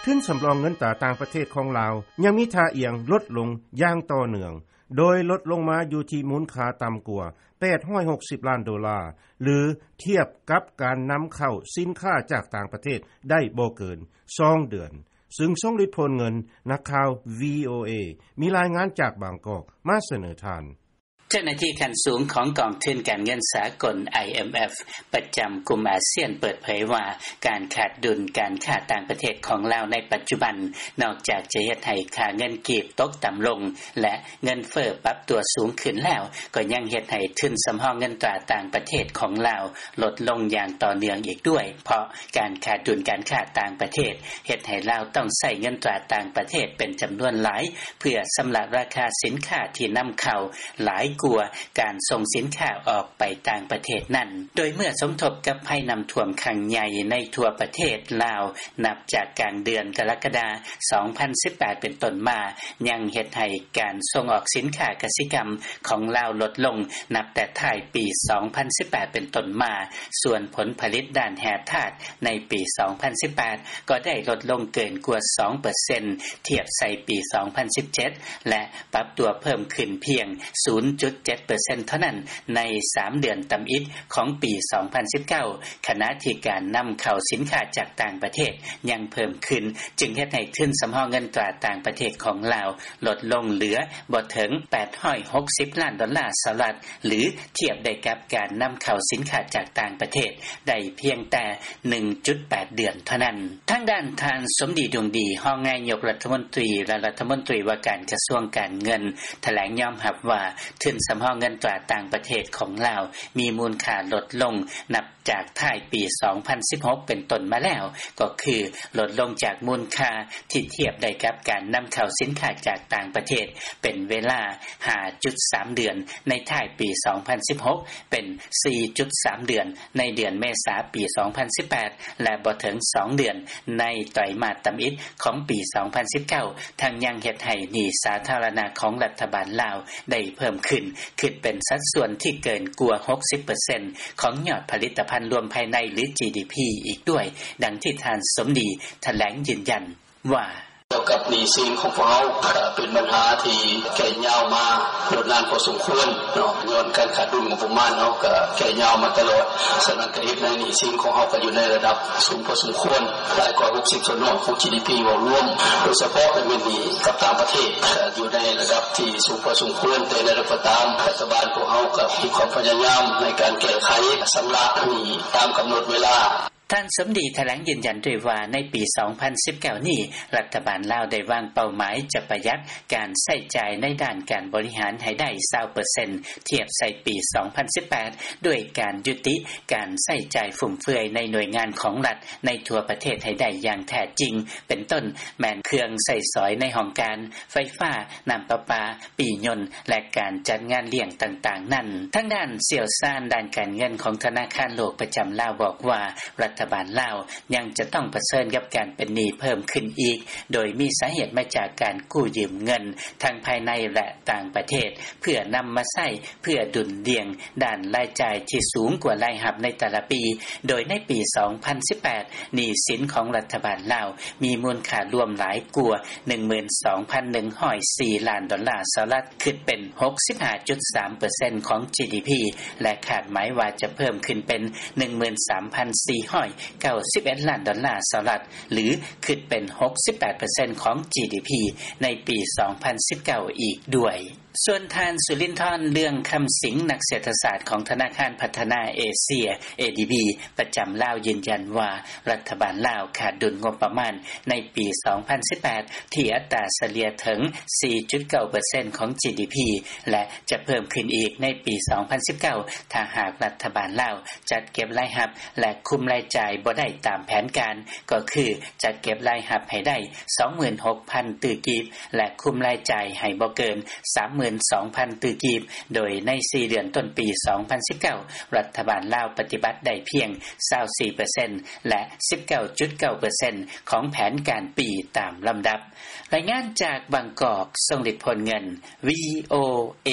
ທຶນສຳຮອງເງິນຕາຕ່າງປະເທດຂອງລາວ ຍັງມີທ່າອ່ຽງລົດລົງຢ່າງຕໍ່ເນື່ອງ ໂດຍລົດລົງມາຢູ່ທີ່ມູນຄ່າຕ່ຳກວ່າ ແປດຮ້ອຍຫົກສິບລ້ານໂດລາ ຫຼື ທຽບກັບການນຳເຂົ້າສິນຄ້າຈາກຕ່າງປະເທດໄດ້ບໍ່ເກີນສອງເດືອນ. ຊຶ່ງ ຊົງລິດ ໂພນເງິນ, ນັກຂ່າວ ວີໂອເອ ມີລາຍງານຈາກບາງກອກມາສະເໜີທ່ານ. ເຈົ້າໜ້າທີ່ຂັ້ນສູງຂອງກອງທຶນການເງິນສາກົນ ໄອເອັມເອັຟ ປະຈຳກຸ່ມອາຊຽນເປີດເຜີຍວ່າ ການຂາດດຸນການຄ້າຕ່າງປະເທດຂອງລາວໃນປັດຈຸບັນ ນອກຈາກຈະເຮັດໃຫ້ຄ່າເງິນກີບຕົກຕ່ຳລົງ ແລະ ເງິນເຟີ້ປັບຕົວສູງຂຶ້ນແລ້ວ ກໍຍັງເຮັດໃຫ້ທຶນສຳຮອງເງິນຕາຕ່າງປະເທດຂອງລາວ ລົດລົງຢ່າງຕໍ່ເນື່ອງອີກດ້ວຍ ເພາະການຂາດດຸນການຄ້າຕ່າງປະເທດ ເຮັດໃຫ້ລາວຕ້ອງໃຊ້ເງິນຕາຕ່າງປະເທດເປັນຈຳນວນຫຼາຍ ເພື່ອຊຳລະລາຄາສິນຄ້າທີ່ນຳເຂົ້າ ຫຼາຍກວ່າການສົ່ງສິນຄ້າອອກໄປຕ່າງປະເທດນັ້ນ. ໂດຍເມື່ອສົມທົບກັບໄພນ້ຳຖ້ວມຄັ້ງໃຫຍ່ໃນທົ່ວປະເທດລາວ ນັບຈາກກາງເດືອນກໍລະກະດາ ສອງພັນສິບແປດ ເປັນຕົ້ນມາ ຍັງເຮັດໃຫ້ການສົ່ງອອກສິນຄ້າກະສິກຳຂອງລາວລົດລົງ ນັບແຕ່ທ້າຍປີ ສອງພັນສິບແປດ ເປັນຕົ້ນມາ, ສ່ວນຜົນຜະລິດດ້ານແຮ່ທາດໃນປີ ສອງພັນສິບແປດ ກໍໄດ້ລົດລົງເກີນກວ່າ ສອງເປີເຊັນ ທຽບໃສ່ປີ ສອງພັນສິບເຈັດ ແລະ ປັບຕົວເພີ່ມຂຶ້ນພຽງ ສູນຈຸດເຈັດເປີເຊັນ ເທົ່ານັ້ນ ໃນສາມເດືອນທຳອິດຂອງປີ ສອງພັນສິບເກົ້າ ຂະນະທີ່ການນຳເຂົ້າສິນຄ້າຈາກຕ່າງປະເທດຍັງເພີ່ມຂຶ້ນ ຈຶ່ງເຮັດໃຫ້ທຶນສຳຮອງເງິນຕາຕ່າງປະເທດຂອງລາວ ລົດລົງເຫຼືອບໍ່ເຖິງ ແປດຮ້ອຍຫົກສິບລ້ານໂດລາສະຫະລັດ ຫຼື ທຽບໄດ້ກັບການນຳເຂົ້າສິນຄ້າຈາກຕ່າງປະເທດໄດ້ພຽງແຕ່ ໜຶ່ງຈຸດແປດເດືອນເທົ່ານັ້ນ. ທາງດ້ານທ່ານ ສົມດີ ດົງດີ ຮອງນາຍົກລັດຖະມົນຕີ ແລະ ລັດຖະມົນຕີວ່າການກະຊວງການເງິນ ຖະແຫຼງຍອມຮັບວ່າ ທຶນສຳຮອງເງິນຕາຕ່າງປະເທດຂອງລາວ ມີມູນຄ່າລົດລົງ ນັບຈາກທ້າຍປີ ສອງພັນສິບຫົກ ເປັນຕົ້ນມາແລ້ວ ກໍຄື ລົດລົງຈາກມູນຄ່າທີ່ທຽບໄດ້ກັບການນຳເຂົ້າສິນຄ້າຈາກຕ່າງປະເທດ ເປັນເວລາ ຫ້າຈຸດສາມເດືອນ ໃນທ້າຍປີ ສອງພັນສິບຫົກ ເປັນ ສີ່ຈຸດສາມເດືອນ ໃນເດືອນເມສາປີ ສອງພັນສິບແປດ ແລະ ບໍ່ເຖິງສອງເດືອນ ໃນໄຕຣມາດທຳອິດຂອງປີ ສອງພັນສິບເກົ້າ ທັງຍັງເຮັດໃຫ້ໜີ້ສາທາລະນະຂອງລັດຖະບານລາວໄດ້ເພີ່ມຂຶ້ນ ຄິດເປັນສັດສ່ວນທີ່ເກີນກວ່າ ຫົກສິບເປີເຊັນ ຂອງຍອດຜະລິດຕະພັນລວມພາຍໃນ ຫຼື ຈີດີພີ ອີກດ້ວຍ, ດັ່ງທີ່ທ່ານ ສົມດີ ຖະແຫຼງຢືນຢັນ ວ່າ: ກ່ຽວກັບໜີ້ສິນຂອງພວກເຮົາ ກໍເປັນບັນຫາທີ່ແກ່ຍາວມາດົນນານພໍສົມຄວນເນາະ, ຍ້ອນການຂາດດຸນງົບປະມານເຮົາກໍແກ່ຍາວມາຕະຫຼອດ. ສະນັ້ນກໍເຮັດໃຫ້ໜີ້ສິນຂອງເຮົາກໍຢູ່ໃນລະດັບສູງພໍສົມຄວນ, ຫຼາຍກວ່າ ຫົກສິບສ່ວນຮ້ອຍຂອງ ຈີດີພີ ເວົ້າລວມ, ໂດຍສະເພາະແມ່ນໜີ້ກັບຕ່າງປະເທດ ກໍຢູ່ໃນລະດັບທີ່ສູງພໍສົມຄວນ. ແຕ່ຢ່າງໃດກໍຕາມ, ລັດຖະບານພວກເຮົາກໍມີຄວາມພະຍາຍາມໃນການແກ້ໄຂຊຳລະໜີ້ຕາມກຳນົດເວລາ. ທ່ານ ສົມດີ ຖະແຫຼງຢືນຢັນດ້ວຍວ່າ ໃນປີ ສອງພັນສິບເກົ້າ ນີ້ ລັດຖະບານລາວໄດ້ວາງເປົ້າໝາຍຈະປະຢັດການໃຊ້ຈ່າຍໃນດ້ານການບໍລິຫານໃຫ້ໄດ້ ຊາວເປີເຊັນ ທຽບໃສ່ປີ ສອງພັນສິບແປດ ດ້ວຍການຍຸຕິການໃຊ້ຈ່າຍຟຸມເຟືອຍໃນໜ່ວຍງານຂອງລັດໃນທົ່ວປະເທດໃຫ້ໄດ້ຢ່າງແທ້ຈິງ, ເປັນຕົ້ນແມ່ນເຄື່ອງໃຊ້ສອຍໃນຫ້ອງການ, ໄຟຟ້າ, ນ້ຳປະປາ, ປີ້ຍົນ ແລະ ການຈັດງານລ້ຽງຕ່າງໆນັ້ນ. ທາງດ້ານຊ່ຽວຊານດ້ານການເງິນຂອງທະນາຄານໂລກປະຈຳລາວບອກວ່າ ລັດຖະບານລາວຍັງຈະຕ້ອງປະເຊີນກັບການເປັນໜີ້ເພີ່ມຂຶ້ນອີກ, ໂດຍມີສາເຫດມາຈາກການກູ້ຢືມເງິນທັງພາຍໃນ ແລະ ຕ່າງປະເທດ ເພື່ອນຳມາໃຊ້ເພື່ອດຸນດ່ຽງດ້ານລາຍຈ່າຍທີ່ສູງກວ່າລາຍຮັບໃນແຕ່ລະປີ, ໂດຍໃນປີ ສອງພັນສິບແປດ ໜີ້ສິນຂອງລັດຖະບານລາວມີມູນຄ່າລວມຫຼາຍກວ່າ ໜຶ່ງໝື່ນສອງພັນໜຶ່ງຮ້ອຍສີ່ລ້ານໂດລາສະຫະລັດ, ຄິດເປັນ ຫົກສິບຫ້າຈຸດສາມເປີເຊັນ ຂອງ ຈີດີພີ ແລະ ຄາດໝາຍວ່າຈະເພີ່ມຂຶ້ນເປັນ ໜຶ່ງໝື່ນສາມພັນສີ່ຮ້ອຍເກົ້າສິບເອັດລ້ານໂດລາສະຫະລັດ ຫຼື ຄິດເປັນ ຫົກສິບແປດເປີເຊັນ ຂອງ ຈີດີພີ ໃນປີ ສອງພັນສິບເກົ້າ ອີກດ້ວຍ. ສ່ວນທ່ານ ສຸລິນທອນ ເລື່ອງຄຳສິງ ນັກເສດຖະສາດຂອງທະນາຄານພັດທະນາເອເຊຍ ເອດີບີ ປະຈຳລາວ ຢືນຢັນວ່າ ລັດຖະບານລາວຂາດດຸນງົບປະມານໃນປີ ສອງພັນສິບແປດ ທີ່ອັດຕາສະເລ່ຍເຖິງ ສີ່ຈຸດເກົ້າເປີເຊັນ ຂອງ ຈີດີພີ ແລະ ຈະເພີ່ມຂຶ້ນອີກໃນປີ ສອງພັນສິບເກົ້າ ຖ້າຫາກລັດຖະບານລາວຈັດເກັບລາຍຮັບ ແລະ ຄຸມລາຍຈ່າຍບໍ່ໄດ້ຕາມແຜນການ, ກໍຄື ຈັດເກັບລາຍຮັບໃຫ້ໄດ້ ສອງໝື່ນຫົກພັນຕື້ກີບ ແລະ ຄຸມລາຍຈ່າຍໃຫ້ບໍ່ເກີນ ສາມໝື່ນສອງພັນຕື້ກີບ, ໂດຍໃນສີ່ເດືອນຕົ້ນປີ ສອງພັນສິບເກົ້າ ລັດຖະບານລາວປະຕິບັດໄດ້ພຽງ ຊາວສີ່ເປີເຊັນ ແລະ ສິບເກົ້າຈຸດເກົ້າເປີເຊັນ ຂອງແຜນການປີຕາມລຳດັບ. ລາຍງານຈາກບາງກອກ, ຊົງລິດ ໂພນເງິນ, ວີໂອເອ.